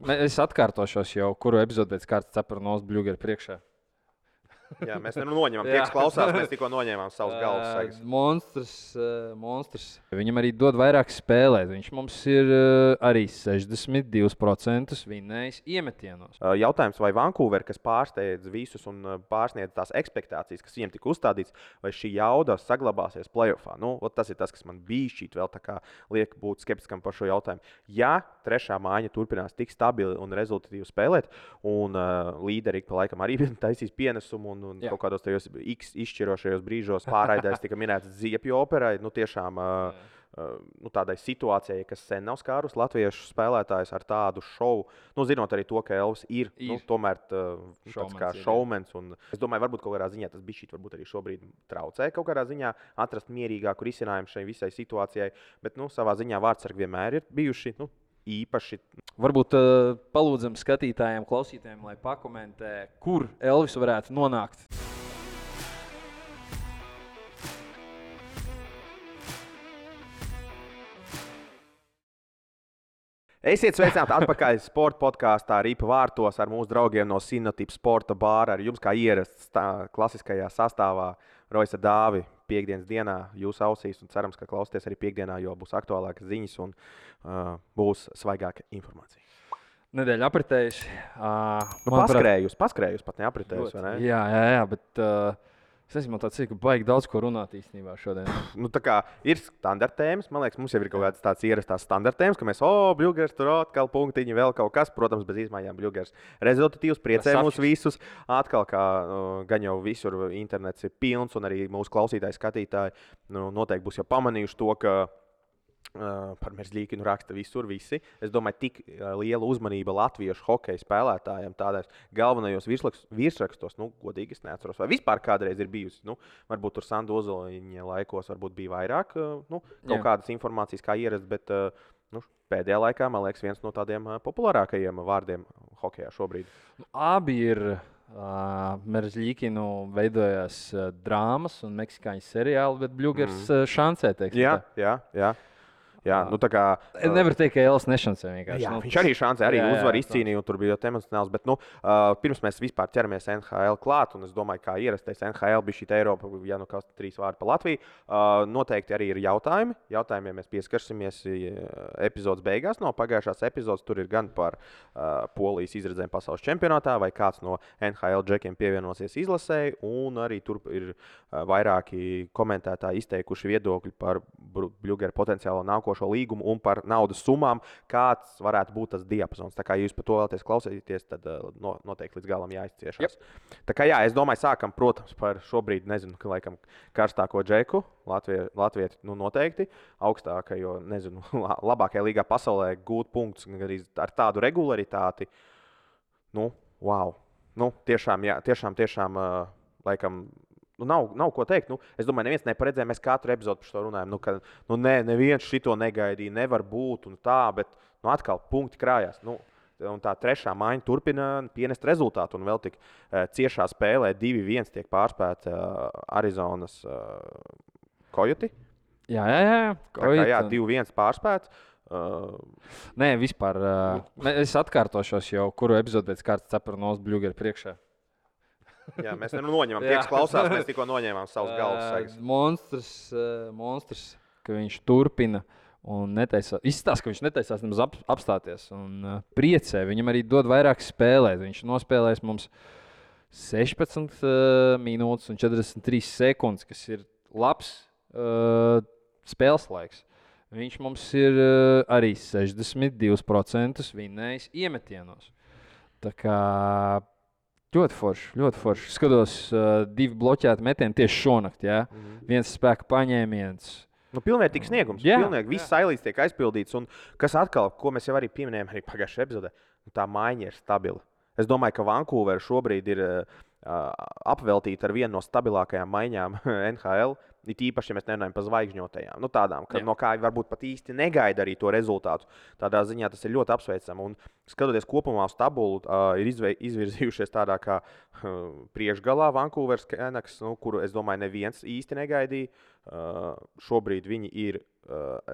Es atkārtošos jau, kuru epizodi pēc kārtas Capranovs Bļugera priekšā. Jā, mēs noņemam, tie, kas klausās, mēs tikko noņēmām savus galvas sagas. Monstrs. Viņam arī dod vairāk spēlēt. Viņš mums ir arī 62% vinnējis iemetienos. Jautājums, vai Vancouver, kas pārsteidz visus un pārsniedz tās ekspektācijas, kas viņiem tika uzstādīts, vai šī jauda saglabāsies playoffā? Nu, tas ir tas, kas man bija šķiet vēl tā kā liek būt skeptiskam par šo jautājumu. Ja trešā mājiņa turpinās tik stabili un rezultatīvi spēlēt, un līderi pa laikam arī taisīs pienesumu un kaut kādos tajos izšķirošajos brīžos pārraidēs tika minēts Ziepju operai, tiešām tādai situācijai, kas sen nav skārus latviešu spēlētājus ar tādu šovu. Zinot arī to, ka Elvis ir. Tomēr tāds kā šovmens. Es domāju, varbūt kaut kādā ziņā tas bišķīt varbūt arī šobrīd traucē kaut kādā ziņā atrast mierīgāku risinājumu šai visai situācijai. Bet savā ziņā vārdsargi vienmēr ir bijuši īpaši. Varbūt palūdzam skatītājiem, klausītājiem, lai pakomentē, kur Elvis varētu nonākt. Esiet sveicināti atpakaļ sporta podkāstā Ripa vārtos ar mūsu draugiem no Sinotipa sporta bāra. Ar jums kā ierasts klasiskajā sastāvā Roisa Dāvi piekdienas dienā jūsu ausīs. Un cerams, ka klausieties arī piekdienā, jo būs aktuālākas ziņas un būs svaigāka informācija. Nedēļa apritējusi. Paskrējusi pat neapritējusi, vai ne? Jā, bet es nezinu, man tāds ir, ka baigi daudz ko runāt īstenībā šodien. Tā kā ir standarta tēmas, man liekas, mums jau ir kaut kāds tāds ierastās standarta tēmas, ka mēs, Bļugers, tur atkal punktiņi, vēl kaut kas, protams, bez izmaiņām Bļugers. Rezultatīvs, priecē mūs visus. Atkal, kā gan jau visur internets ir pilns, un arī mūsu klausītāji, skatītāji noteikti būs jau pamanījuši to, ka par Merzļīkinu raksta visur visi. Es domāju, tik liela uzmanība latviešu hokeja spēlētājiem tādās galvenajos virsrakstos, godīgi es neatceros, vai vispār kādreiz ir bijusi. Varbūt tur Sandu Ozoliņa laikos varbūt bija vairāk kaut kādas informācijas kā ierast, bet pēdējā laikā, man liekas, viens no tādiem populārākajiem vārdiem hokejā šobrīd. Abi ir Merzļīkinu veidojās drāmas un meksikāņu seriāli, bet Bļugers šancē, teiksim. Jā. Tā kā nevar teikt, ka Elvis nešancē vienkārši. Jā, viņš arī šancē, arī uzvar izcīnīja, un tur bija ļoti emocionāls. Bet, pirms mēs vispār ķeramies NHL klāt, un es domāju, kā ierastais NHL bija šī Eiropa, ja kas 3 vārdi pa Latviju, noteikti arī ir jautājumi. Jautājumiem mēs pieskarsimies epizodes beigās. No pagājušās epizodes tur ir gan par Polijas izredzēm pasaules čempionātā, vai kāds no NHL džekiem pievienosies izlasēji, un arī tur ir vairāki komentētāji izteikuši viedokļi par Bļugera potenciālo nākošo līgumu un par naudas summām, kāds varētu būt tas diapazons. Tā kā jūs par to vēlaties klausīties, tad noteikti līdz galam jāizciešās. Tā kā es domāju, sākam, protams, par šobrīd, nezinu, laikam karstāko džeku. Latvieši noteikti augstākajo, nezinu, labākajā līgā pasaulē gūt punktus arī ar tādu regularitāti. Wow. Tiešām, laikam, nav ko teikt. Es domāju, neviens neparedzēja. Mēs katru epizodi par to runājam. Ka neviens šito negaidīja, nevar būt un tā, bet atkal punkti krājās. Un tā trešā mājiņa turpina pienest rezultātu. Un vēl tik ciešā spēlē 2-1 tiek pārspēta Arizonas Coyote. Jā. 2-1 pārspēts. Nē, vispār. Es atkārtošos jau, kuru epizodi pēc kārtas Capranovs Bļugera priekšā. Jā, mēs noņemam, tie, kas klausās, mēs tikko noņēmām savus galvas sagas. Monstrs, ka viņš turpina un izstāsta, ka viņš netaisās nemaz apstāties un priecē. Viņam arī dod vairāk spēlēt. Viņš nospēlēs mums 16 minūtes un 43 sekundes, kas ir labs spēles laiks. Viņš mums ir arī 62% vinnējis iemetienos. Tā kā ļoti forši. Skatos 2 bloķēti metieni tieši šonakt. Ja? Viens spēka paņēmiens. Pilnvērtīgs sniegums. Pilnīgi viss sailīts tiek aizpildīts. Un kas atkal, ko mēs jau arī pieminējām arī pagājušajā epizodē, tā maiņa ir stabila. Es domāju, ka Vancouver šobrīd ir apveltīta ar vienu no stabilākajām maiņām NHL. It īpaši, ja mēs nerunājam par zvaigžņotajām. Tādām, no kā varbūt pat īsti negaida arī to rezultātu. Tādā ziņā tas ir ļoti apsveicami. Un skatoties kopumā uz tabulu, ir izvirzījušies tādā kā priekšgalā Vancouver Canucks, kuru es domāju neviens īsti negaidīja. Šobrīd viņi ir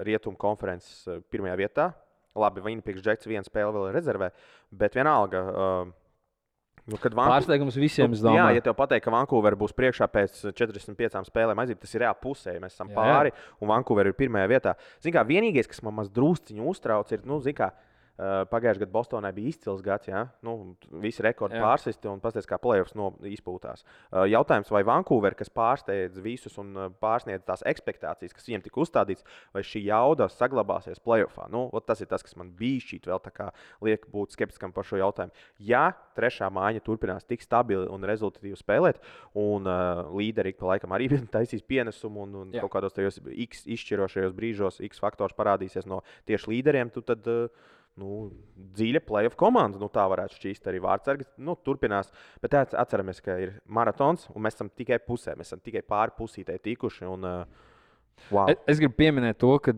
Rietumu konferences pirmajā vietā. Labi, Winnipeg Jets viena spēle vēl ir rezervē, bet vienalga. Pārsteigums visiem, es jā, domāju. ja tev pateikt, ka Vancouver būs priekšā pēc 45 spēlēm, aiziet, tas ir reāli pusē. Mēs esam pāri, un Vancouver ir pirmajā vietā. Zin kā, vienīgais, kas man maz drusciņu uztrauc, ir, pagājušajā gadā Bostonai bija izcils gads, ja? Visi rekordi pārsisti un pasties, kā playoffs izpūtās. Jautājums, vai Vancouver, kas pārsteidz visus un pārsniedz tās ekspektācijas, kas viņiem tika uzstādīts, vai šī jauda saglabāsies playoffā? Tas ir tas, kas man bija šķiet vēl tā kā liek būt skeptiskam par šo jautājumu. Ja trešā mājiņa turpinās tik stabili un rezultatīvi spēlēt, un līderi pa laikam arī taisīs pienesumu un kaut kādos tajos X izšķirošajos brīžos X faktors parādīsies no tieši līderiem, tad dziļa playoff komanda, tā varētu šķīst arī vārdsargi. Turpinās, bet atceramies, ka ir maratons, un mēs esam tikai pusē, mēs esam tikai pāri pusītei tikuši. Un, wow. Es gribu pieminēt to, ka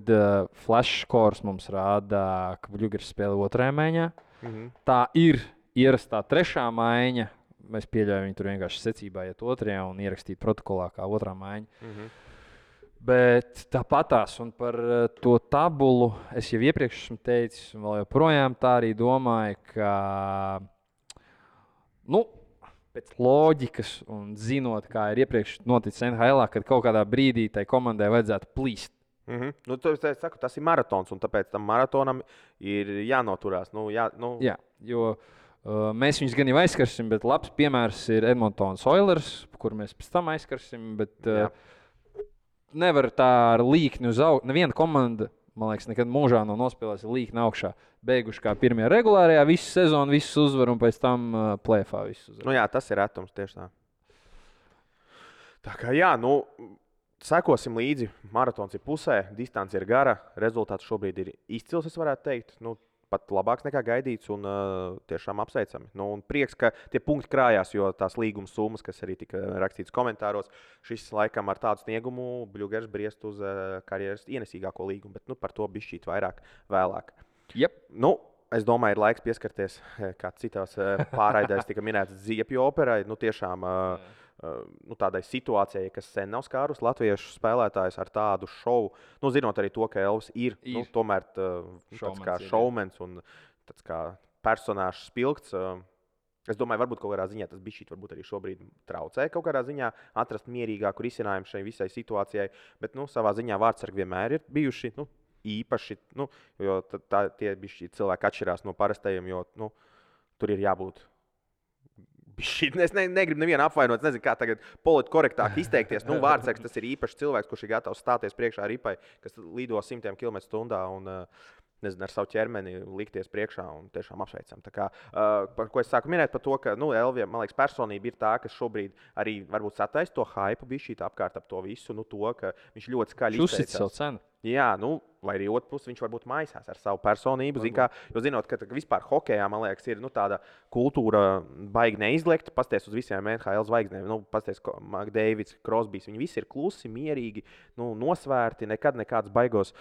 flash scores mums rāda, ka Bluegers spēlē otrajā maiņā. Tā ir ierastā trešā maiņa. Mēs pieļaujam, viņi tur vienkārši secībā iet otrajā un ierakstīt protokolā kā otrā maiņa. Bet tāpatās, un par to tabulu es jau iepriekš esmu teicis, un vēl joprojām tā arī domāju, ka pēc loģikas un zinot, kā ir iepriekš noticis NHL, kad kaut kādā brīdī tai komandai vajadzētu plīst. Es saku, tas ir maratons, un tāpēc tam maratonam ir jānoturās. Jā, jo mēs viņus gan jau aizskarsim, bet labs piemērs ir Edmontons Oilers, kur mēs pēc tam aizskarsim. Nevar tā ar līkni uz augšu. Neviena komanda, man liekas, nekad mūžā nav nospēlējusi līkni augšā. Beiguši kā pirmajā regulārajā visu sezonu, visus uzvaru un pēc tam play-offā visus uzvaru. Jā, tas ir retums tieši tā. Tā kā sekosim līdzi. Maratons ir pusē, distance ir gara, rezultāts šobrīd ir izcils, es varētu teikt. Pat labāks nekā gaidīts un tiešām apsveicami. Un prieks, ka tie punkti krājās, jo tās līguma summas, kas arī tika rakstīts komentāros, šis laikam ar tādu sniegumu Bluegers briest uz karjeras ienesīgāko līgumu, bet par to bišķīt vairāk vēlāk. Yep. Es domāju, ir laiks pieskarties, kā citās pārraidēs tika minēts, Ziepju operai. Tiešām tādai situācijai, kas sen nav skārus latviešu spēlētājus ar tādu šovu. Zinot arī to, ka Elvis ir. Tomēr tāds kā šovmens un tāds kā personāžs spilgts. Es domāju, varbūt kaut kādā ziņā tas bišķīt varbūt arī šobrīd traucē kaut kādā ziņā atrast mierīgāku risinājumu šai visai situācijai. Bet savā ziņā vārdsargi vienmēr ir bijuši īpaši, jo tie bišķīt cilvēki atšķirās no parastajiem, jo tur ir jābūt. Es negribu nevienu apvainot, es nezinu, kā tagad politkorektāk izteikties. Vārdsargs tas ir īpašs cilvēks, kurš ir gatavs stāties priekšā ripai, kas lido 100 km/h un ar savu ķermeni likties priekšā un tiešām apsveicam. Tā kā, par ko es sāku minēt, par to, ka Elvija, man liekas, personība ir tā, kas šobrīd arī varbūt sataisa to hype bišķīt apkārt ap to visu, to, ka viņš ļoti skaļi izteicās. Uzsit savu cenu. Jā, vai arī otrs puses viņš varbūt maisās ar savu personību. Jo zinot, ka vispār hokejā, man liekas, ir tāda kultūra baigi neizliekta. Pasties uz visiem NHL zvaigznēm. Pasties, Makdeivids, Krosbijs, viņi visi ir klusi, mierīgi, nosvērti, nekāds baigos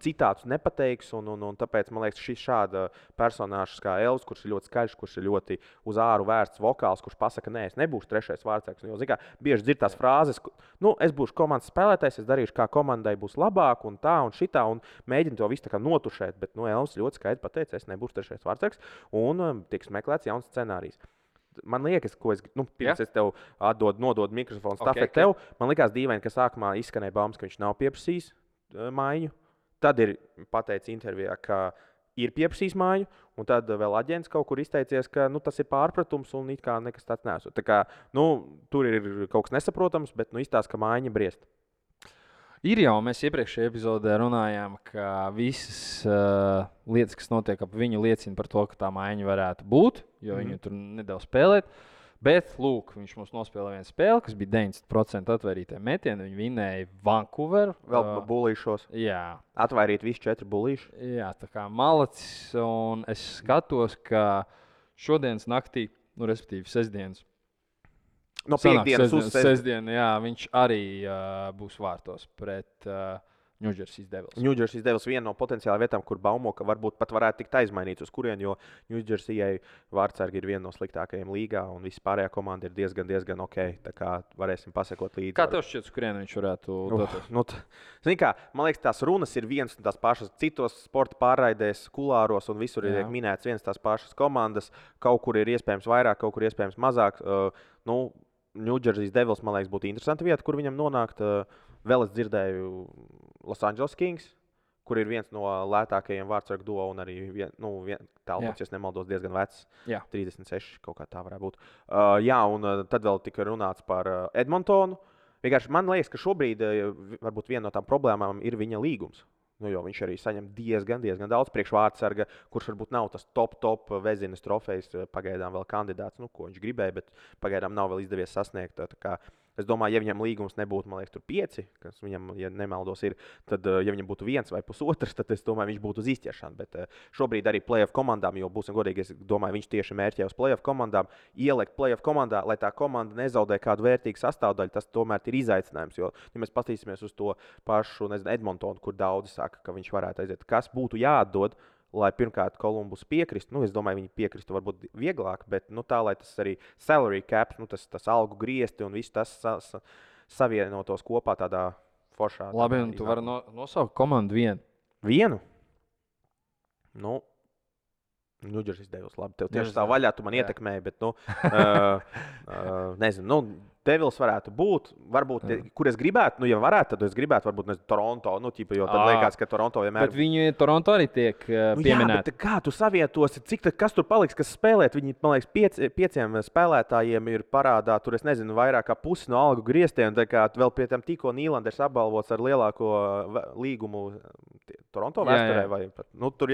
citātus nepateiks. Un tāpēc, man liekas, šis šāda personāžs kā Elvis, kurš ir ļoti skaļš, kurš ir ļoti uz āru vērsts vokāls, kurš pasaka, nē, es nebūšu trešais vārdsargs. Jo, bieži dzird tās frāzes, es būšu komandas spēlētājs, es darīšu, kā komandai būs labāk. Un tā, un šitā, un mēģina to visu notušēt. Bet Elvis ļoti skaidri pateica, es nebūšu trešais vārdsargs, un tiks meklēts jauns scenārijs. Man liekas, ko es pirms es tev nododu mikrofonu stafeti tev, man liekas dīvaini, ka sākumā izskanēja baumas, ka viņš nav pieprasījis maiņu. Tad ir pateicis intervijā, ka ir pieprasījis maiņu, un tad vēl aģents kaut kur izteicies, ka tas ir pārpratums un it kā nekas tāds nesot. Tā kā, tur ir kaut kas nesaprotams, bet izstāsta, ka maiņa briest. Ir jau, mēs iepriekšējā epizodē runājām, ka visas lietas, kas notiek ap viņu, liecina par to, ka tā maiņa varētu būt, jo viņu tur nedev spēlēt. Bet, lūk, viņš mums nospēlēja vienu spēli, kas bija 90% atvairītie metieni. Viņi vinēja Vancouveru. Vēl bulīšos. Jā. Atvairīt visi 4 bulīši. Jā, tā kā malacis. Un es skatos, ka šodienas naktī, respektīvi sestdienas, no piekdienas uz sestdienu, jā, viņš arī būs vārtos pret Ņūdžersijas Devils. Ņūdžersijas Devils viena no potenciālām vietām, kur baumo, ka varbūt pat varētu tikt aizmainīts uz kurien, jo Ņūdžersijai vārdsargi ir viena no sliktākajiem līgā, un viss pārējā komanda ir diezgan ok. Tā kā varēsim pasekot līdzi. Kā tev šķiet, uz kurien viņš varētu doties? Zini kā, man liekas, tās runas ir vienas un tās pašas. Citos sporta pārraidēs, kulāros un visur ir minēts vienas tās pašas komandas. Kaut kur ir iespējams vairāk, kaut kur iespējams mazāk. Ņūdžersijas Devils, man liekas, būtu interesanta vieta, kur viņam nonākt. Vēl es dzirdēju Los Angeles Kings, kur ir viens no lētākajiem vārdsargu duo un arī tālpats, ja nemaldos, diezgan vecs. 36, kaut kā tā varētu būt. Un tad vēl tika runāts par Edmontonu. Vienkārši man liekas, ka šobrīd varbūt viena no tām problēmām ir viņa līgums. Jo viņš arī saņem diezgan daudz priekšvārdsarga, kurš varbūt nav tas top Vezinas trofejs, pagaidām vēl kandidāts, ko viņš gribēja, bet pagaidām nav vēl izdevies sasniegt. Es domāju, ja viņam līgums nebūtu, man liekas, tur 5, kas viņam, ja nemaldos, ir, tad, ja viņam būtu 1 vai 1,5, tad es domāju, viņš būtu uz izķeršanu. Bet šobrīd arī playoff komandām, jo būsim godīgi, es domāju, viņš tieši mērķē uz playoff komandām, ielikt playoff komandā, lai tā komanda nezaudē kādu vērtīgu sastāvdaļu, tas tomēr ir izaicinājums. Jo, ja mēs paskatīsimies uz to pašu, Edmontonu, kur daudzi saka, ka viņš varētu aiziet, kas būtu jāatdod, lai pirmkārt Kolumbus piekristu. Es domāju, viņi piekristu varbūt vieglāk, bet tā, lai tas arī salary cap, tas algu griezti un viss tas savienotos kopā tādā foršā. Labi, un tu vari nosaukt komandu vienu. Vienu? Ņūdžersijas Devils, labi, tev tieši tā vaļā, tu man ietekmēji, bet, nezinu, Devils varētu būt, varbūt, kur es gribētu, ja varētu, tad es gribētu, varbūt, Toronto, jo tad liekas, ka Toronto vienmēr... Bet viņi Toronto arī tiek pieminēti. Jā, bet kā tu savietosi, kas tur paliks, kas spēlēt? Viņi, man liekas, 5 spēlētājiem ir parādā, tur, es nezinu, vairāk kā pusi no algu grieztiem, tā kā vēl pie tam tikko Nīlanders apbalvots ar lielāko līgumu Toronto vēsturē, vai pat, tur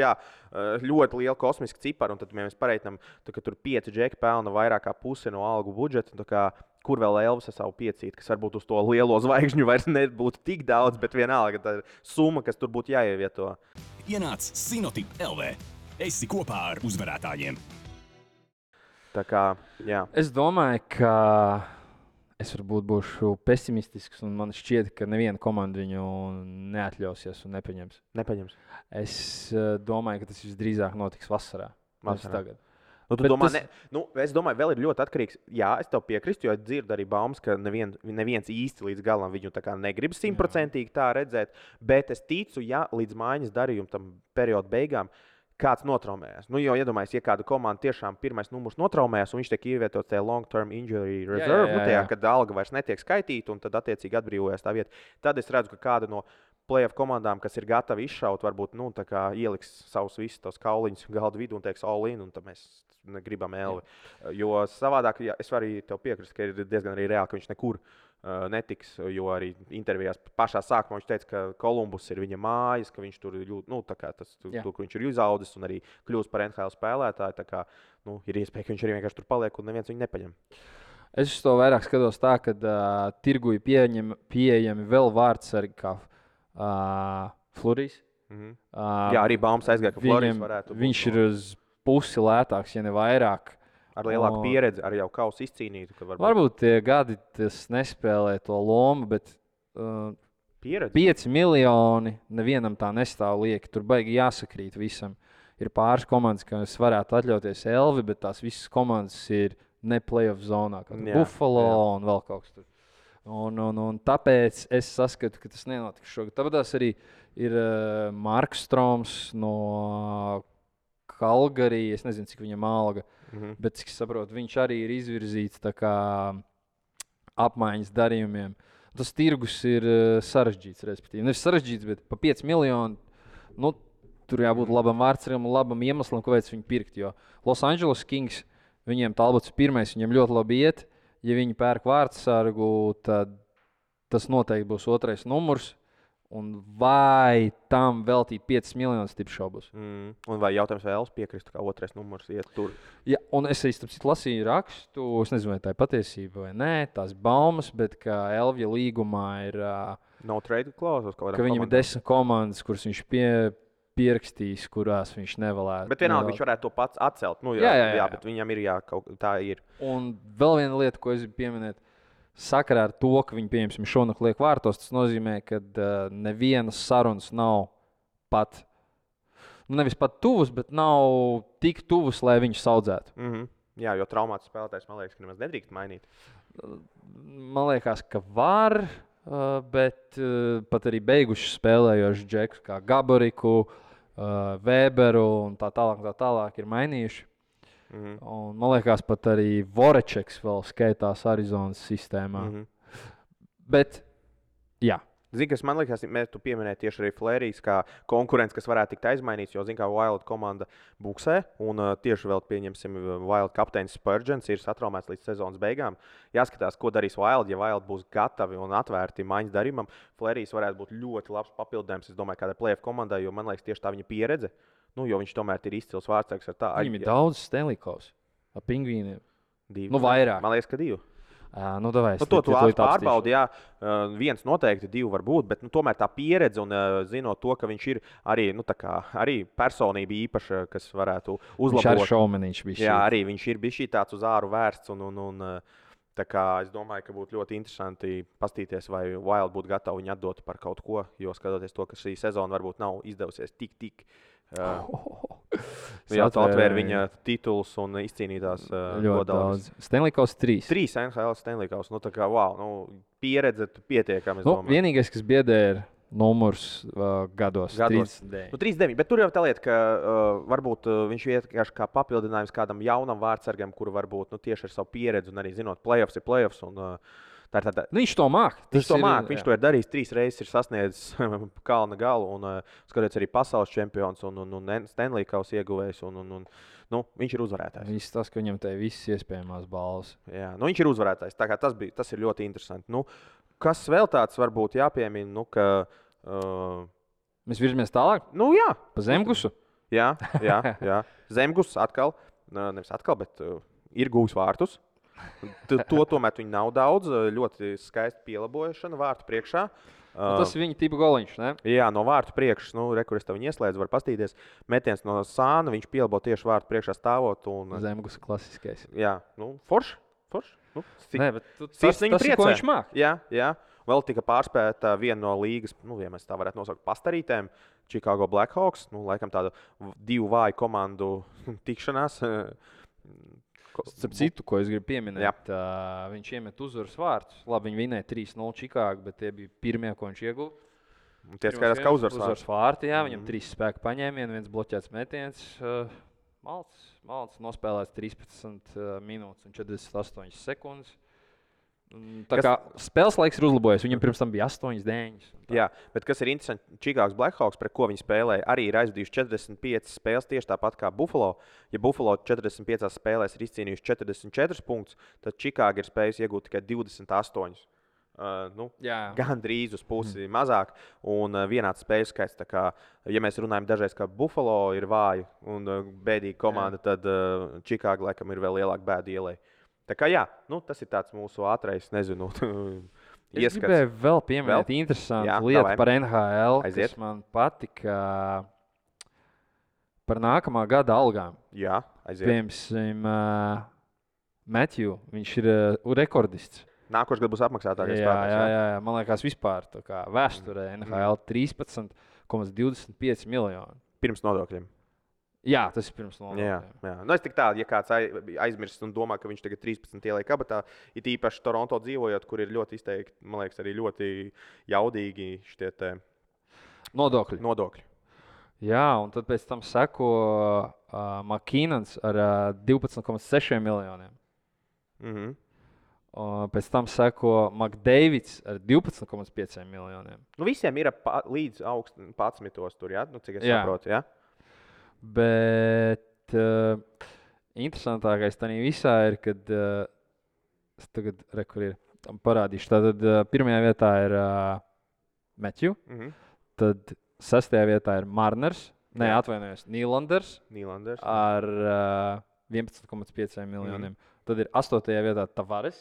ļoti liela kosmiska cipara, un tad mēs pareitinām, ka tur 5 džeki pelna vairāk kā pusi no algu budžeta, kur vēl Elvis ar savu 5, kas varbūt uz to lielo zvaigžņu vairs nebūtu tik daudz, bet vienalga tā summa, kas tur būtu jāievieto. Ienāc Sinotip LV. Esi kopā ar uzvarētājiem. Tā kā, jā. Es domāju, ka es varbūt būšu pesimistisks, un man šķiet, ka neviena komanda viņu neatļausies un nepaņems. Es domāju, ka tas visdrīzāk notiks vasarā. Tagad. Es domāju, vēl ir ļoti atkarīgs. Jā, es tev piekrītu, jo es dzirdu arī baumas, ka neviens īsti līdz galam viņu negrib 100% tā redzēt. Bet es ticu, ja līdz mājas darījuma tam perioda beigām kāds notraumējas. Jo iedomājieties, ja kāda komanda tiešām pirmais numurs notraumējas un viņš tiek ievietots tajā long-term injury reserve, kad alga vairs netiek skaitīta un tad attiecīgi atbrīvojas tā vieta, tad es redzu, ka kāda no playoff komandām, kas ir gatavi izšaut, varbūt ieliks savus visus tos kauliņus galdu vidū un teiks all in, un tad mēs gribam Elvi. Jo savādāk, es varu arī tev piekrist, ka ir diezgan arī reāli, ka viņš nekur netiks, jo arī intervijās pašā sākumā viņš teica, ka Kolumbus ir viņa mājas, ka viņš tur jūt, tur, kur viņš ir izaudzis un arī kļūst par NHL spēlētāju, tā kā, ir iespēja, ka viņš arī vienkārši tur paliek un neviens viņu nepaņem. Es uz to vairāk skatos tā, ka tirgu ir pieejami vēl vārdsargi kā Florijs. Jā, arī baumas aizgāja, ka Florijs varētu būt. Viņš ir uz pusi lētāks, ja ne vairāk. Ar lielāku pieredzi, ar jau kausu izcīnītu. Varbūt tie gadi tas nespēlē to lomu, bet 5 miljoni nevienam tā nestāv lieki. Tur baigi jāsakrīt visam. Ir pāris komandas, kas varētu atļauties Elvi, bet tās visas komandas ir ne playoff zonā, kā Buffalo un vēl kaut kas tur. Un tāpēc es saskatu, ka tas nenotiks šogad. Tāpēc arī ir Marks Stroms no Kalgarī, es nezinu, cik viņam alga, bet, cik saprotu, viņš arī ir izvirzīts tā kā apmaiņas darījumiem. Tas tirgus ir sarežģīts, respektīvi. Nevis sarežģīts, bet pa 5 miljonu, tur jābūt labam vārdsargam un labam iemeslam, kāpēc viņu pirkt, jo Los Angeles Kings, viņiem talbots pirmais, viņiem ļoti labi iet. Ja viņi pērk vārdsargu, tad tas noteikti būs 2. numurs. Un vai tam veltīt 5 miljonus tipšaubus? Un vai jautājums, vai Elvis piekristu, kā 2. numurs iet tur? Jā, un es lasīju rakstu, es nezinu, vai tā ir patiesība vai nē, tās baumas, bet ka Elvija līgumā ir... No trade clause? Ka viņam ir 10 komandas, kuras viņš pierakstījis, kurās viņš nevēlētu. Bet vienalga viņš varētu to pats atcelt. Jā, bet viņam ir kaut tā ir. Un vēl viena lieta, ko es gribu pieminēt. sakarā ar to, ka viņi, pieņemsim, šonakt liek vārtos, tas nozīmē, ka nevienas sarunas nav pat, nevis pat tuvas, bet nav tik tuvas, lai viņus audzētu. Jā, jo traumāts spēlētājs, man liekas, ka nemaz nedrīkst mainīt. Man liekas, ka var, bet pat arī beiguši spēlējoši džekus kā Gaboriku, Weberu un tā tālāk ir mainījuši. Un, man liekas, pat arī Vorečeks vēl skaitās Arizonas sistēmā. Bet, jā. Zini, kas man liekas, tu pieminēji tieši arī Flērijas kā konkurents, kas varētu tikt aizmainīts, jo, zini, kā Wild komanda buksē, un tieši vēl pieņemsim Wild kapteinis Spurgeons ir satraumēts līdz sezonas beigām. Jāskatās, ko darīs Wild, ja Wild būs gatavi un atvērti maiņas darījumam. Flērijas varētu būt ļoti labs papildinājums, es domāju, kādai playoff komandai, jo man liekas tieši tā viņa pieredze, jo viņš tomēr ir izcils vārdsargs ar tā. Viņam ir daudz Stanley Kaus ar pingvīniem. Vairāk. Man liekas, ka 2. To pārbaudi, jā. Viens noteikti, 2 var būt, bet tomēr tā pieredze un zinot to, ka viņš ir arī, arī personība īpaša, kas varētu uzlabot. Viņš ir šaumenīgs bijis. Jā, arī viņš ir bijis tāds uz āru vērsts. Tā kā es domāju, ka būtu ļoti interesanti paskatīties, vai Wild būtu gatavi viņu atdot par kaut ko, jo skatoties to, ka šī sezona varbūt nav izdevusies tik. Jā, tā atvēra viņa titulus un izcīnītās ļoti daudz. Stanley Kaus 3. 3 NHL Stanley Kaus. Tā kā, pieredze pietiekami. Vienīgais, kas biedē, ir numurs gados. 39. Bet tur jau tā lieta, ka varbūt viņš vienkārši kā papildinājums kādam jaunam vārdsargam, kuru varbūt tieši ar savu pieredzi un arī zinot playoffs ir playoffs. Viņš to māk. Viņš to ir darījis 3 reizes, ir sasniedzis kalna galu un skatoties arī pasaules čempions un Stanley Kaus ieguvējs. Viņš ir uzvarētājs. Viņš tas, ka viņam te visas iespējamās balvas. Jā, viņš ir uzvarētājs. Tā kā tas ir ļoti interesanti. Kas vēl tāds varbūt jāpiemina, ka... Mēs virzamies tālāk? Jā. Pa Zemgusu? Jā. Zemgus atkal, nevis atkal, bet ir gūs vārtus. To tomēr viņi nav daudz. Ļoti skaista pielabošana vārtu priekšā. Tas ir viņa tipa goliņš, ne? Jā, no vārtu priekšas. Rekurors tev viņa ieslēdz, var pastīties. Metiens no sāna, viņš pielabo tieši vārtu priekšā stāvot. Zemgus klasiskais. Jā, forši. Nē, bet tas ir, ko viņš māk. Jā. Vēl tika pārspēta viena no līgas, ja mēs tā varētu nosaukt, pastarītēm. Chicago Blackhawks. Laikam tādu 2 vāju komandu tikšanās. Starp citu, ko es gribu pieminēt, viņš iemet uzvaras vārtus. Labi, viņi vinēja 3-0 Čikāgu, bet tie bija pirmie, ko viņš ieguva. Tie skaidrs, ka uzvaras vārti, jā, viņam 3 spēku paņēmieni, 1 bloķēts metiens. Malts nospēlēts 13 minūtes un 48 sekundes. Spēles laiks ir uzlabojies. Viņam pirms tam bija 8-9. Jā, bet kas ir interesanti, Chicago Blackhawks, pret ko viņi spēlēja, arī ir aizvadījuši 45 spēles tieši tāpat kā Buffalo. Ja Buffalo 45 spēlēs ir izcīnījuši 44 punktus, tad Chicago ir spējusi iegūt tikai 28. Gandrīz uz pusi mazāk un vienāds spēļu skaits. Kā, ja mēs runājam dažreiz, ka Buffalo ir vāja un bēdīga komanda, tad Chicago laikam ir vēl lielāka bēda ielai. Tā kā tas ir tāds mūsu ātrais, nezinu, ieskats. Es gribēju vēl pieminēt interesantu lietu par NHL, kas man patika par nākamā gada algām. Jā, aiziet. Piemēram, Matthew, viņš ir rekordists. Nākošais gads būs apmaksātākais spēlētājs. Jā, man liekas vispār tā kā vēsturē NHL 13,25 miljoni. Pirms nodokļiem. Jā, tas ir pirms nodokļiem. Jā. Es tik tādu, ja kāds aizmirst un domā, ka viņš tagad 13 ieliek kabatā, it īpaši Toronto dzīvojot, kur ir ļoti izteikti, man liekas, arī ļoti jaudīgi šitie te nodokļi. Jā, un tad pēc tam seko McKinnons ar 12,6 miljoniem. Pēc tam seko McDavids ar 12,5 miljoniem. Visiem ir līdz 11. tur, jā? Cik es saprotu, jā? Bet interesantākais tajā visā ir, kad es tagad parādīšu. Tātad pirmajā vietā ir Matthew, tad 6. vietā ir Marners, Nylanders ar 11,5 miljoniem. Tad ir 8. vietā Tavares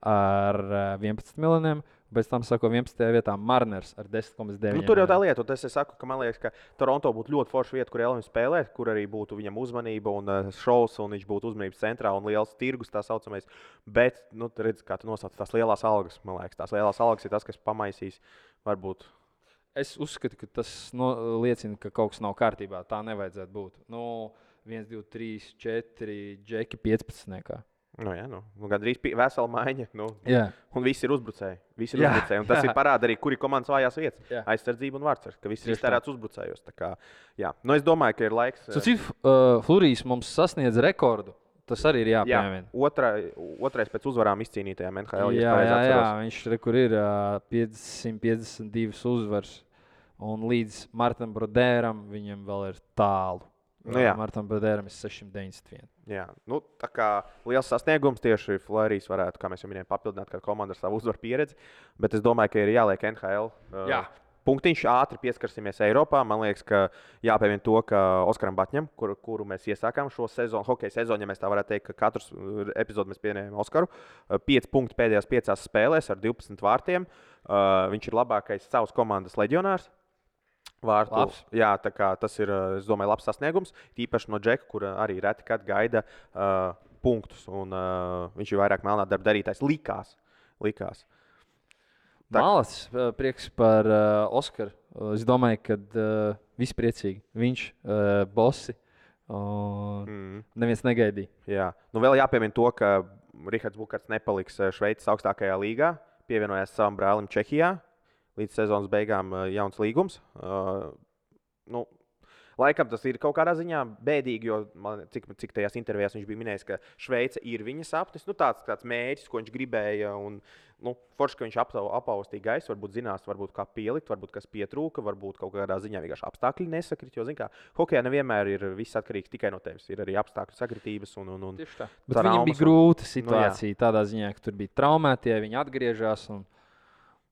ar 11 miljoniem Pēc tam sako 11. vietā Mariners ar 10,9. Tur jau tā lieta, un es saku, ka man liekas, ka Toronto būtu ļoti forša vieta, kur Elvis spēlēt, kur arī būtu viņam uzmanība un šovs, un viņš būtu uzmanības centrā un liels tirgus tā saucamais. Bet, redz, kā tu nosauc tās lielās algas, man liekas, tās lielās algas ir tas, kas pamaisīs varbūt. Es uzskatu, ka tas liecina, ka kaut kas nav kārtībā. Tā nevajadzētu būt. 1, 2, 3, 4, džeki 15. Gandrīz vesela maiņa. Un visi ir uzbrucēji. Un tas ir parāda arī, kur ir komandas vājās vietas. Aizsardzība un vārdsargs, ka viss ir iztērēts uzbrucējos. Es domāju, ka ir laiks. Flurijas mums sasniedz rekordu. Tas arī ir jāpiemina. Otrais pēc uzvarām izcīnītajām NHL. Viņš kur ir 552 uzvaras. Un līdz Martam Brodēram viņam vēl ir tālu. Martam Brodēram ir 691. Tā kā liels sasniegums tieši Florijas varētu, kā mēs jau minējām, papildināt kādu komandu ar savu uzvaru pieredzi. Bet es domāju, ka ir jāliek NHL. Punktiņš ātri pieskarsimies Eiropā. Man liekas, ka jāpiemina to, ka Oskaram Batņam, kuru mēs iesākām šo sezonu, hokeja sezonu, ja mēs tā varētu teikt, ka katrs epizodu mēs pieņēmām Oskaru. 5 punkti pēdējās 5 spēlēs ar 12 vārtiem. Viņš ir labākais savas komandas leģionārs. Tas ir, es domāju, labs sasniegums. Tīpaši no Džeka, kur arī reti kad gaida punktus. Un, viņš ir vairāk melnā darba darītājs. Likās. Malacis, prieks par Oskaru. Es domāju, ka visi priecīgi. Viņš, bosi, neviens negaidīja. Vēl jāpiemina to, ka Rihards Bukarts nepaliks Šveices augstākajā līgā. Pievienojās savam brālim Čehijā. Līdz sezonas beigām jauns līgums. Laikam tas ir kaut kādā ziņā bēdīgi, jo cik tajās intervijās viņš bija minējis, ka Šveice ir viņa sapnis. Tāds mērķis, ko viņš gribēja. Forši, ka viņš apaustīja gaisu, varbūt zinās, varbūt kā pielikt, varbūt kas pietrūka, varbūt kaut kādā ziņā vienkārši apstākļi nesakrit. Jo, hokejā nevienmēr ir viss atkarīgs tikai no tevis. Ir arī apstākļu sakritības un tieši tā. Bet viņam bija grūta situācija tādā ziņā, ka tur bija traumētie, viņi atgriežas.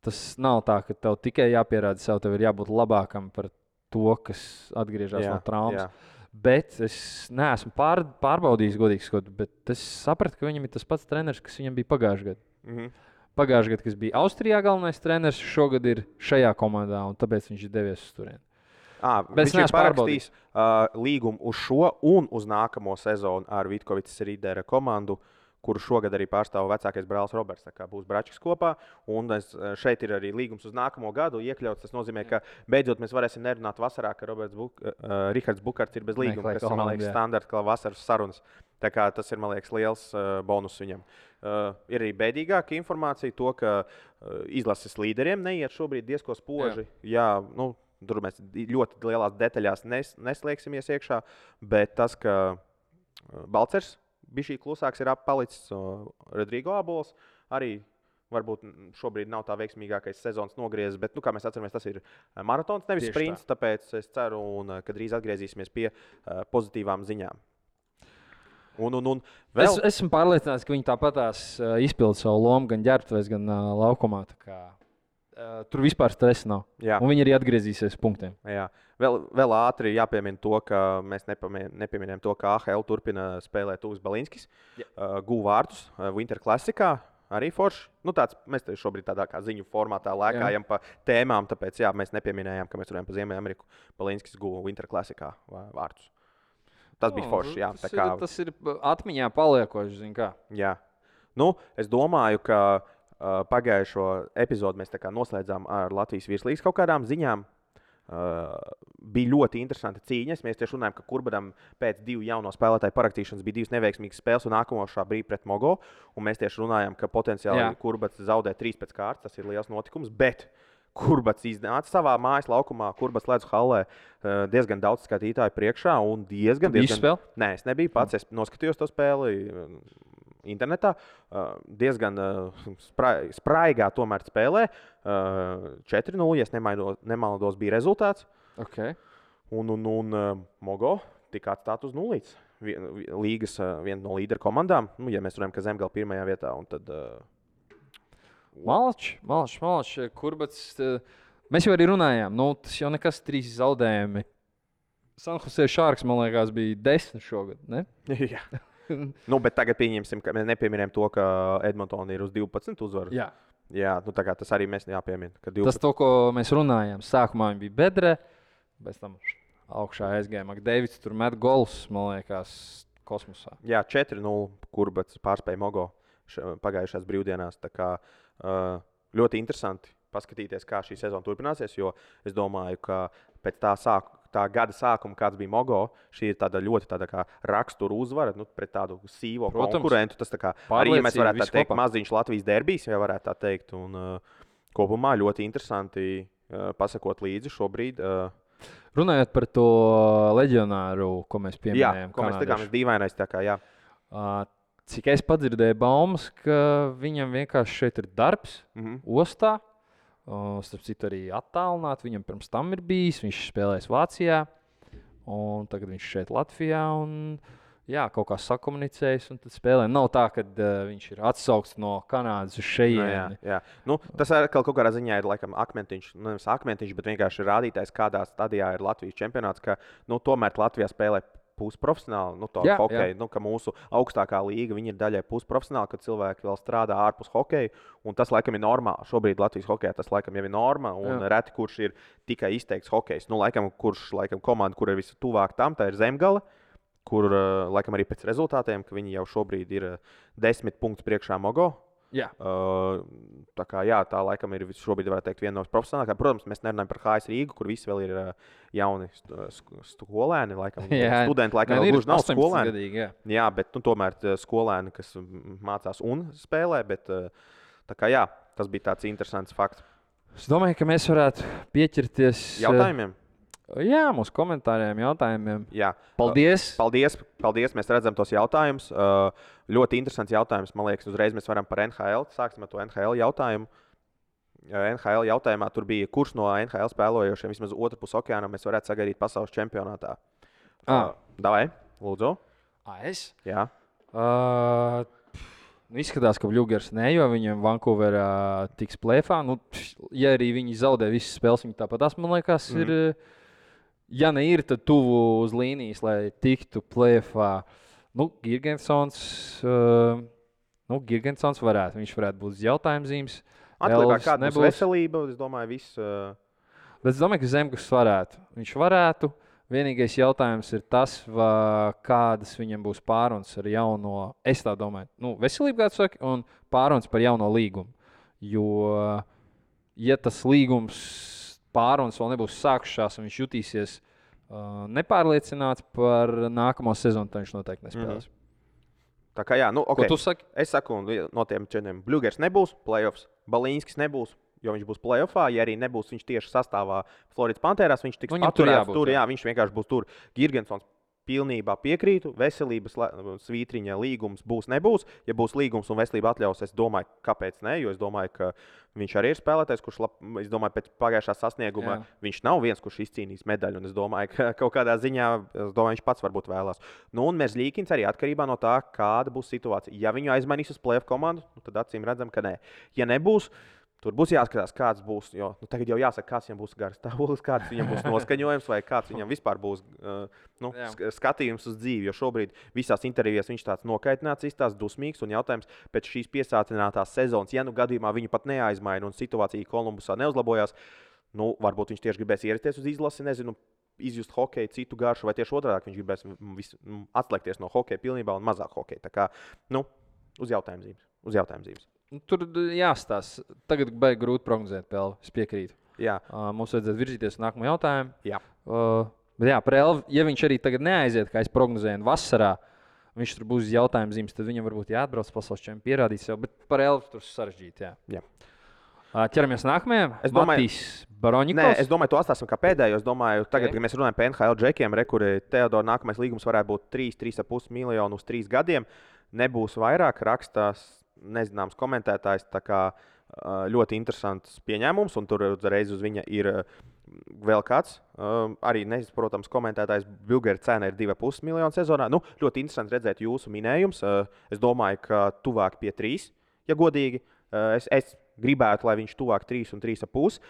Tas nav tā, ka tev tikai jāpierāda sev, tev ir jābūt labākam par to, kas atgriežas no traumas. Bet es neesmu pārbaudījis, godīgi sakot, bet es sapratu, ka viņam ir tas pats treneris, kas viņam bija pagājušajā gadā. Pagājušajā gadā, kas bija Austrijā galvenais treneris, šogad ir šajā komandā, un tāpēc viņš ir devies uz turieni. Viņš ir parakstījis līgumu uz šo un uz nākamo sezonu ar Vitkovicas Rīdera komandu, kuru šogad arī pārstāv vecākais brālis Roberts. Būs Bračs kopā. Un šeit ir arī līgums uz nākamo gadu iekļauts. Tas nozīmē, ka beidzot mēs varēsim nerunāt vasarā, ka Rihards Bukarts ir bez līguma, kas ir, man liekas, standarts, kā vasaras sarunas. Tā kā tas ir, man liekas, liels bonus viņam. Ir arī bēdīgāka informācija to, ka izlases līderiem neiet šobrīd diezko spoži. Tur mēs ļoti lielās detaļās neslēgsimies iekšā, bet tas, ka Balcers bija šī klusāks, ir palicis Rodrigo Abols. Arī varbūt šobrīd nav tā veiksmīgākais sezonas nogriezis, bet, kā mēs atceramies, tas ir maratons, nevis sprints. Tāpēc es ceru, ka drīz atgriezīsimies pie pozitīvām ziņām. Vēl... Esmu pārliecināts, ka viņi tāpatās izpilda savu lomu gan ģērbtuvēs, gan laukumā. Tur vispār stresa nav. Un viņi arī atgriezīsies punktiem. Vēl ātri jāpiemina to, ka mēs nepieminējam to, ka AHL turpina spēlēt Tuvs Balinskis. Guva vārtus Winter Classicā. Arī forši. Mēs šobrīd tādā kā ziņu formātā lēkājam pa tēmām, tāpēc mēs nepieminējām, ka mēs runājam par Ziemeļameriku. Balinskis guva Winter Classicā vārtus. Tas bija forši. Tas ir atmiņā paliekoši, zin kā. Es domāju, ka pagājušo epizodu mēs noslēdzām ar Latvijas virslīgas kaut kādām ziņām. Bija ļoti interesanti cīņas. Mēs tieši runājam, ka Kurbadam pēc 2 jauno spēlētāju parakstīšanas bija 2 neveiksmīgas spēles un nākamošā bija pret Mogo. Un mēs tieši runājam, ka potenciāli Kurbats zaudē 3 pēc kārtas. Tas ir liels notikums. Bet Kurbats iznāca savā mājas laukumā, Kurbats ledus hallē diezgan daudz skatītāju priekšā. Diezgan... Nē, es nebiju pats. Es noskatījos to spēli internetā. Diezgan spraigā tomēr spēlē. 4-0, ja nemaldos, bija rezultāts. Un Mogo tika atstāt uz 0. Līgas viena no līderu komandām. Ja mēs runājam, ka Zemgala pirmajā vietā. Un tad, Malačs, Kurbats. Mēs jau arī runājām. Tas jau nekas 3 zaudējumi. San Jose Sharks, man liekas, bija 10 šogad, ne? Bet tagad pieņemsim, ka mēs nepieminējam to, ka Edmontona ir uz 12 uzvaru. Jā, nu, tā kā tas arī mēs jāpiemina. Tas, to, ko mēs runājām, sākumā viņa bija bedre, pēc tam augšā aizgāja McDavids, tur met gols, man liekas, kosmosā. Jā, 4-0, kur pārspēja Mogo pagājušās brīvdienās. Tā kā ļoti interesanti paskatīties, kā šī sezona turpināsies, jo es domāju, ka pēc tā gada sākuma, kāds bija Mogo, šī ir tāda ļoti kā rakstura uzvara pret tādu sīvo konkurentu. Tas arī, ja mēs varētu tā teikt, maziņš Latvijas derbijs, ja varētu tā teikt. Un kopumā ļoti interesanti pasakot līdzi šobrīd. Runājot par to leģionāru, ko mēs pieminējām. Jā, ko mēs tikām dīvainais. Jā. Cik es padzirdēju baumas, ka viņam vienkārši šeit ir darbs, ostā. Starp citu, arī attālināti. Viņam pirms tam ir bijis. Viņš spēlēs Vācijā, un tagad viņš šeit Latvijā. Un, jā, kaut kā sakomunicējis un tad spēlē. Nav tā, ka viņš ir atsaukts no Kanādas uz šejieni. Jā. Nu, tas kaut kādā ziņā ir laikam akmentiņš, nevis akmentiņš, bet vienkārši rādītājs, kādā stadijā ir Latvijas čempionāts, ka tomēr Latvijā spēlē pusprofesionāli, hokeju, ka mūsu augstākā līga ir daļai pusprofesionāli, kad cilvēki vēl strādā ārpus hokeja. Un tas, laikam, ir normāli. Šobrīd Latvijas hokejā tas, laikam, jau ir norma. Un reti, kurš ir tikai izteikts hokejs. Nu, kurš komanda, kur ir visatuvāk tam, tā ir Zemgale, kur, laikam, arī pēc rezultātiem, ka viņi jau šobrīd ir 10 punktus priekšā Mogo. Jā. Tā laikam ir šobrīd, varētu teikt, viena no profesionālākajām. Protams, mēs nerunājam par HS Rīgu, kur visi vēl ir jauni skolēni. Studenti laikam vēl gluži nav skolēni. Jā, bet tomēr skolēni, kas mācās un spēlē. Bet, tas bija tāds interesants fakts. Es domāju, ka mēs varētu pieķerties jautājumiem. Jā, mūsu komentāriem, jautājumiem. Jā. Paldies! Paldies! Mēs redzam tos jautājumus. Ļoti interesants jautājums. Man liekas, uzreiz mēs varam par NHL. Sāksim ar to NHL jautājumu. NHL jautājumā tur bija, kurš no NHL spēlojošiem vismaz otru pusi okeāna mēs varētu sagaidīt pasaules čempionātā. Davai, lūdzu. Es? Jā. Izskatās, ka Bļūgers ne, jo viņam Vancouverā tiks plēfā. Ja arī viņi zaudē visas spēles, viņi tāpat, man liekas, ir... Ja ne ir, tad tuvu uz līnijas, lai tiktu plēfā. Girgensons varētu. Viņš varētu būt jautājumzīmes. Atliekā kāda būs veselība, es domāju, viss. Bet es domāju, ka Zemgus varētu. Viņš varētu. Vienīgais jautājums ir tas, kādas viņam būs pārunas ar jauno, es tā domāju, veselību, kā tu saki, un pārunas par jauno līgumu. Jo, ja tas līgums pārunas vēl nebūs sākušās un viņš jutīsies nepārliecināts par nākamo sezonu, tad viņš noteikti nespēlēs. Tā kā jā, Ko tu saki? Es saku, no tiem četriem Bļūgers nebūs, playoffs, Balīnskis nebūs, jo viņš būs playoffā. Ja arī nebūs viņš tieši sastāvā Floridas Pantērās, viņš tiks paturēts tur. Jā, viņš vienkārši būs tur. Girgensons pilnībā piekrītu. Veselības svītriņa līgums nebūs. Ja būs līgums un veselība atļaus, es domāju, kāpēc ne, jo es domāju, ka viņš arī ir spēlētājs, kurš, es domāju, pēc pagājušā sasnieguma viņš nav viens, kurš izcīnīs medaļu. Un es domāju, ka kaut kādā ziņā, viņš pats varbūt vēlās. Un Merzlīkins arī atkarībā no tā, kāda būs situācija. Ja viņu aizmainīs uz playoff komandu, tad acīm redzam, ka nē. Ja nebūs, tur būs jāskatās, kāds būs. Jo tagad jau jāsaka, kāds viņam būs garas stāvoklis, kāds viņam būs noskaņojums, vai kāds viņam vispār būs skatījums uz dzīvi. Jo šobrīd visās intervijās viņš tāds nokaitināts, izstāsts dusmīgs. Un jautājums pēc šīs piesātinātās sezonas, ja gadījumā viņu pat neaizmaina un situācija Kolumbusā neuzlabojās, varbūt viņš tieši gribēs ierasties uz izlasi, nezinu, izjust hokeju, citu garšu, vai tieši otrādi viņš gribēs atslēgties no hokeja pilnībā un mazāk hokeja. Tā kā, uz jautājumzīmes. Tur jāstāsta. Tagad baigi grūti prognozēt, Pelvi. Es piekrītu. Jā. Mums vajadzētu virzīties uz nākamo jautājumu. Jā. Bet jā, par Elvi, ja viņš arī tagad neaiziet, kā es prognozēju, vasarā, viņš tur būs jautājumzīmes, tad viņam varbūt jāatbrauc pasaules čempionātā, pierādīt sev. Bet par Elvi tur sarežģīti. Jā. Ķeramies nākamajam. Matīs Baroņikovs. Es domāju, to atstāsim kā pēdējo. Es domāju, tagad, kad mēs runājam par NHL džekiem, kuri Teodora nākamais līgums varētu būt 3,5 miljonu uz 3 gadiem. Nebūs vairāk, rakstās nezināms komentētājs, tā kā ļoti interesants pieņēmums, un tur uzreiz uz viņa ir vēl kāds. Arī neizprotams komentētājs Bļūgera cena ir 2,5 miljonu sezonā. Ļoti interesanti redzēt jūsu minējums. Es domāju, ka tuvāk pie 3, ja godīgi. Es gribētu, lai viņš tuvāk 3 un 3,5.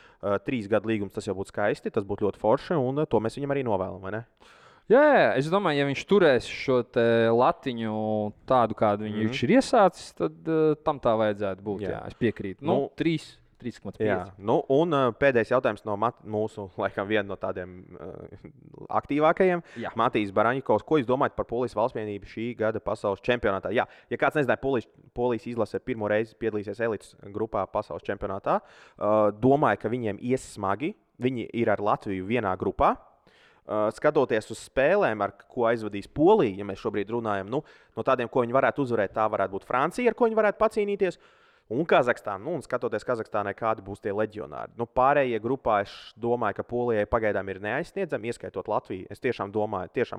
3 gadu līgums tas jau būtu skaisti, tas būtu ļoti forši, un to mēs viņam arī novēlam, vai ne? Jā, es domāju, ja viņš turēs šo latiņu tādu, kādu viņš ir iesācis, tad tam tā vajadzētu būt. Jā, es piekrītu. 3,5. Un pēdējais jautājums no mūsu, laikam, viena no tādiem aktīvākajiem. Matīs Baraņikovs, ko jūs domājat par Polijas valstsvienību šī gada pasaules čempionātā? Jā, ja kāds nezināja, Polijas izlase pirmo reizi piedalīsies elites grupā pasaules čempionātā. Domāju, ka viņiem ies smagi. Viņi ir ar Latviju vienā grupā. Skatoties uz spēlēm, ar ko aizvadīs Polija, ja mēs šobrīd runājam, no tādiem, ko viņi varētu uzvarēt, tā varētu būt Francija, ar ko viņi varētu pacīnīties. Un Kazahstāna, un skatoties Kazahstānai, kādi būs tie leģionāri. Pārējie grupā es domāju, ka Polijai pagaidām ir neaizsniedzami, ieskaitot Latviju. Es tiešām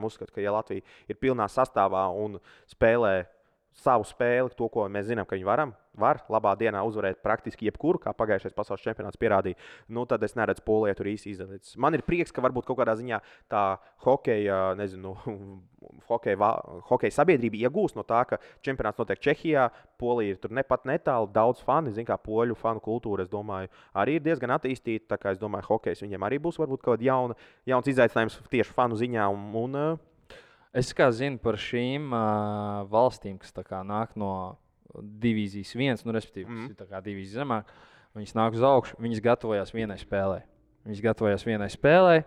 uzskatu, ka ja Latvija ir pilnā sastāvā un spēlē savu spēli, to, ko mēs zinām, ka viņi var labā dienā uzvarēt praktiski jebkuru, kā pagājušais pasaules čempionāts pierādīja, tad es neredzu Polijai tur īsti izdarīts. Man ir prieks, ka varbūt kaut kādā ziņā tā hokeja sabiedrība iegūst no tā, ka čempionāts notiek Čehijā, Polija ir tur nepat netālu, daudz fani, kā poļu fanu kultūra, es domāju, arī ir diezgan attīstīta, tā kā es domāju, hokejs viņiem arī būs varbūt kaut kāds jauns izaicinājums tieši fanu ziņā Es kā zinu par šīm valstīm, kas nāk no divīzijas 1, respektīvi, tas ir divīzija zemāk, viņas nāk uz augšu, viņas gatavojās vienai spēlē.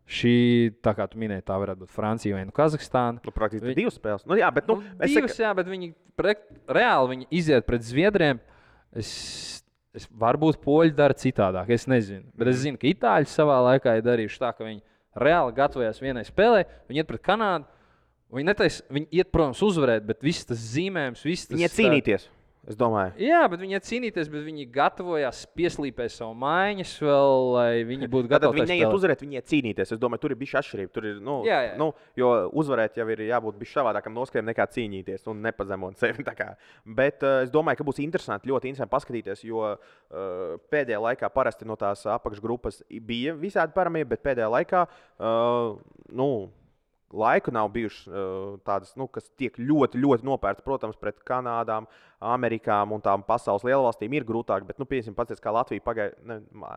Šī, tā kā tu minēji, tā varētu būt Francija vai Kazahstāna. Praktiski divas spēles. Bet viņi reāli iziet pret Zviedriem. Varbūt poļi dara citādāk, es nezinu. Bet es zinu, ka itāļi savā laikā ir darījuši tā, ka viņi reāli gatavojās vienai spēlē, viņi iet pret Kanādu. Viņi iet, protams, uzvarēt, bet viss tas zīmējums, viņi iet cīnīties, es domāju. Jā, bet viņi iet cīnīties, bet viņi gatavojās pieslīpēt savu mājiņas vēl, lai viņi būtu gatavi. Tad viņi neiet uzvarēt, viņi iet cīnīties. Es domāju, tur ir bišķi atšķirība. Tur ir, jo uzvarēt jau ir jābūt bišķi savādākam noskaņam nekā cīnīties un nepazemot sevi. Bet es domāju, ka būs interesanti, ļoti interesanti paskatīties, jo pēdējā laikā parasti no tās apakšgrupas bija visādi parametri, bet pēdējā laikā, laiku nav bijušas tādas, kas tiek ļoti, ļoti nopērts. Protams, pret Kanādām, Amerikām un tām pasaules lielvalstīm ir grūtāk. Bet, piemēram, pats kā Latvija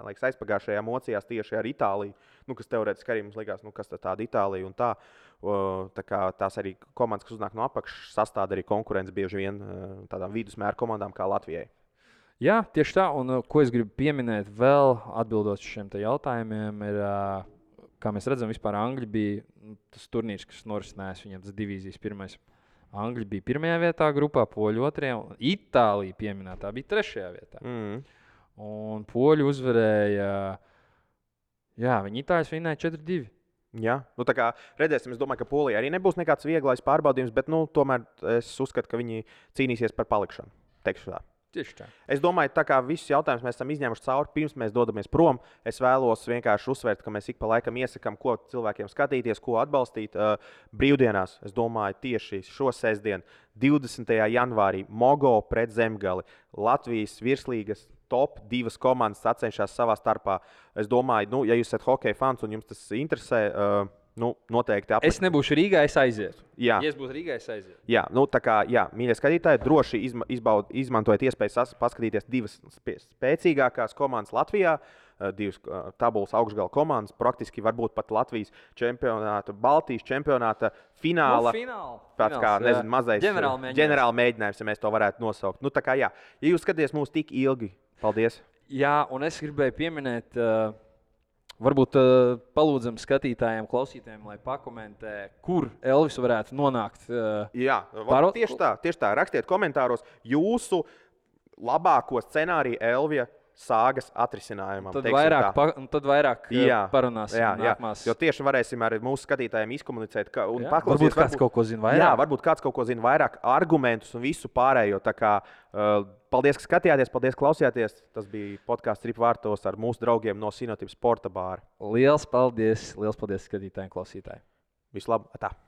aizpagājušajā mocījās tieši ar Itāliju, kas teorētiski arī mums likās, kas tāda Itālija un tā. Tā kā tās arī komandas, kas uznāk no apakšas, sastāv arī konkurence bieži vien tādām vidusmēra komandām kā Latvijai. Jā, tieši tā. Un ko es gribu pieminēt vēl, atbildot uz šiem jautājumiem, ir. Kā mēs redzam, vispār Angļi bija tas turnīrs, kas norisinājās viņam tas divīzijas pirmais. Angļi bija pirmajā vietā grupā, poļi otrajā, un Itālija pieminētā bija trešajā vietā. Un poļi uzvarēja, viņi Itāļus vinēja 4-2. Jā, tā kā redzēsim, es domāju, ka Polija arī nebūs nekāds vieglais pārbaudījums, bet tomēr es uzskatu, ka viņi cīnīsies par palikšanu. Teikšu tā. Tieši tā. Es domāju, tā kā visus jautājumus mēs esam izņēmuši cauri, pirms mēs dodamies prom, es vēlos vienkārši uzsvērt, ka mēs ik pa laikam iesakām, ko cilvēkiem skatīties, ko atbalstīt. Brīvdienās, es domāju, tieši šo sestdienu, 20. janvārī, Mogo pret Zemgali. Latvijas virslīgas top 2 komandas sacenšas savā starpā. Es domāju, ja jūs esat hokeja fans un jums tas interesē, noteikti Es nebūšu Rīgā, es aizietu. Jā. Ja es būtu Rīgā, es aizietu. Jā, tā kā, mīļie skatītāji, droši izmantojiet iespēju paskatīties 2 spēcīgākās komandas Latvijā, 2 tabulas augšgala komandas, praktiski varbūt pat Latvijas čempionāta, Baltijas čempionāta fināla. Tāds kā, mazais ģenerāla mēģinājums, ja mēs to varētu nosaukt. Tā kā, ja jūs skatāties mūs tik ilgi, paldies. Jā, un es gribēju pieminēt... Varbūt palūdzam skatītājiem, klausītājiem, lai pakomentē, kur Elvis varētu nonākt. Jā, tieši tā. Rakstiet komentāros jūsu labāko scenāriju Elvija sāgas atrisinājumam. Tad vairāk parunāsim nākamās. Jo tieši varēsim ar mūsu skatītājiem izkomunicēt. Varbūt kāds kaut ko zina vairāk. Jā, varbūt kāds kaut ko zina vairāk, argumentus un visu pārējo. Tā kā, paldies, ka skatījāties, paldies, klausījāties. Tas bija podkāsts Rip vārtos ar mūsu draugiem no Sinotip sporta bāra. Liels paldies skatītājiem, klausītājiem. Vislabāk!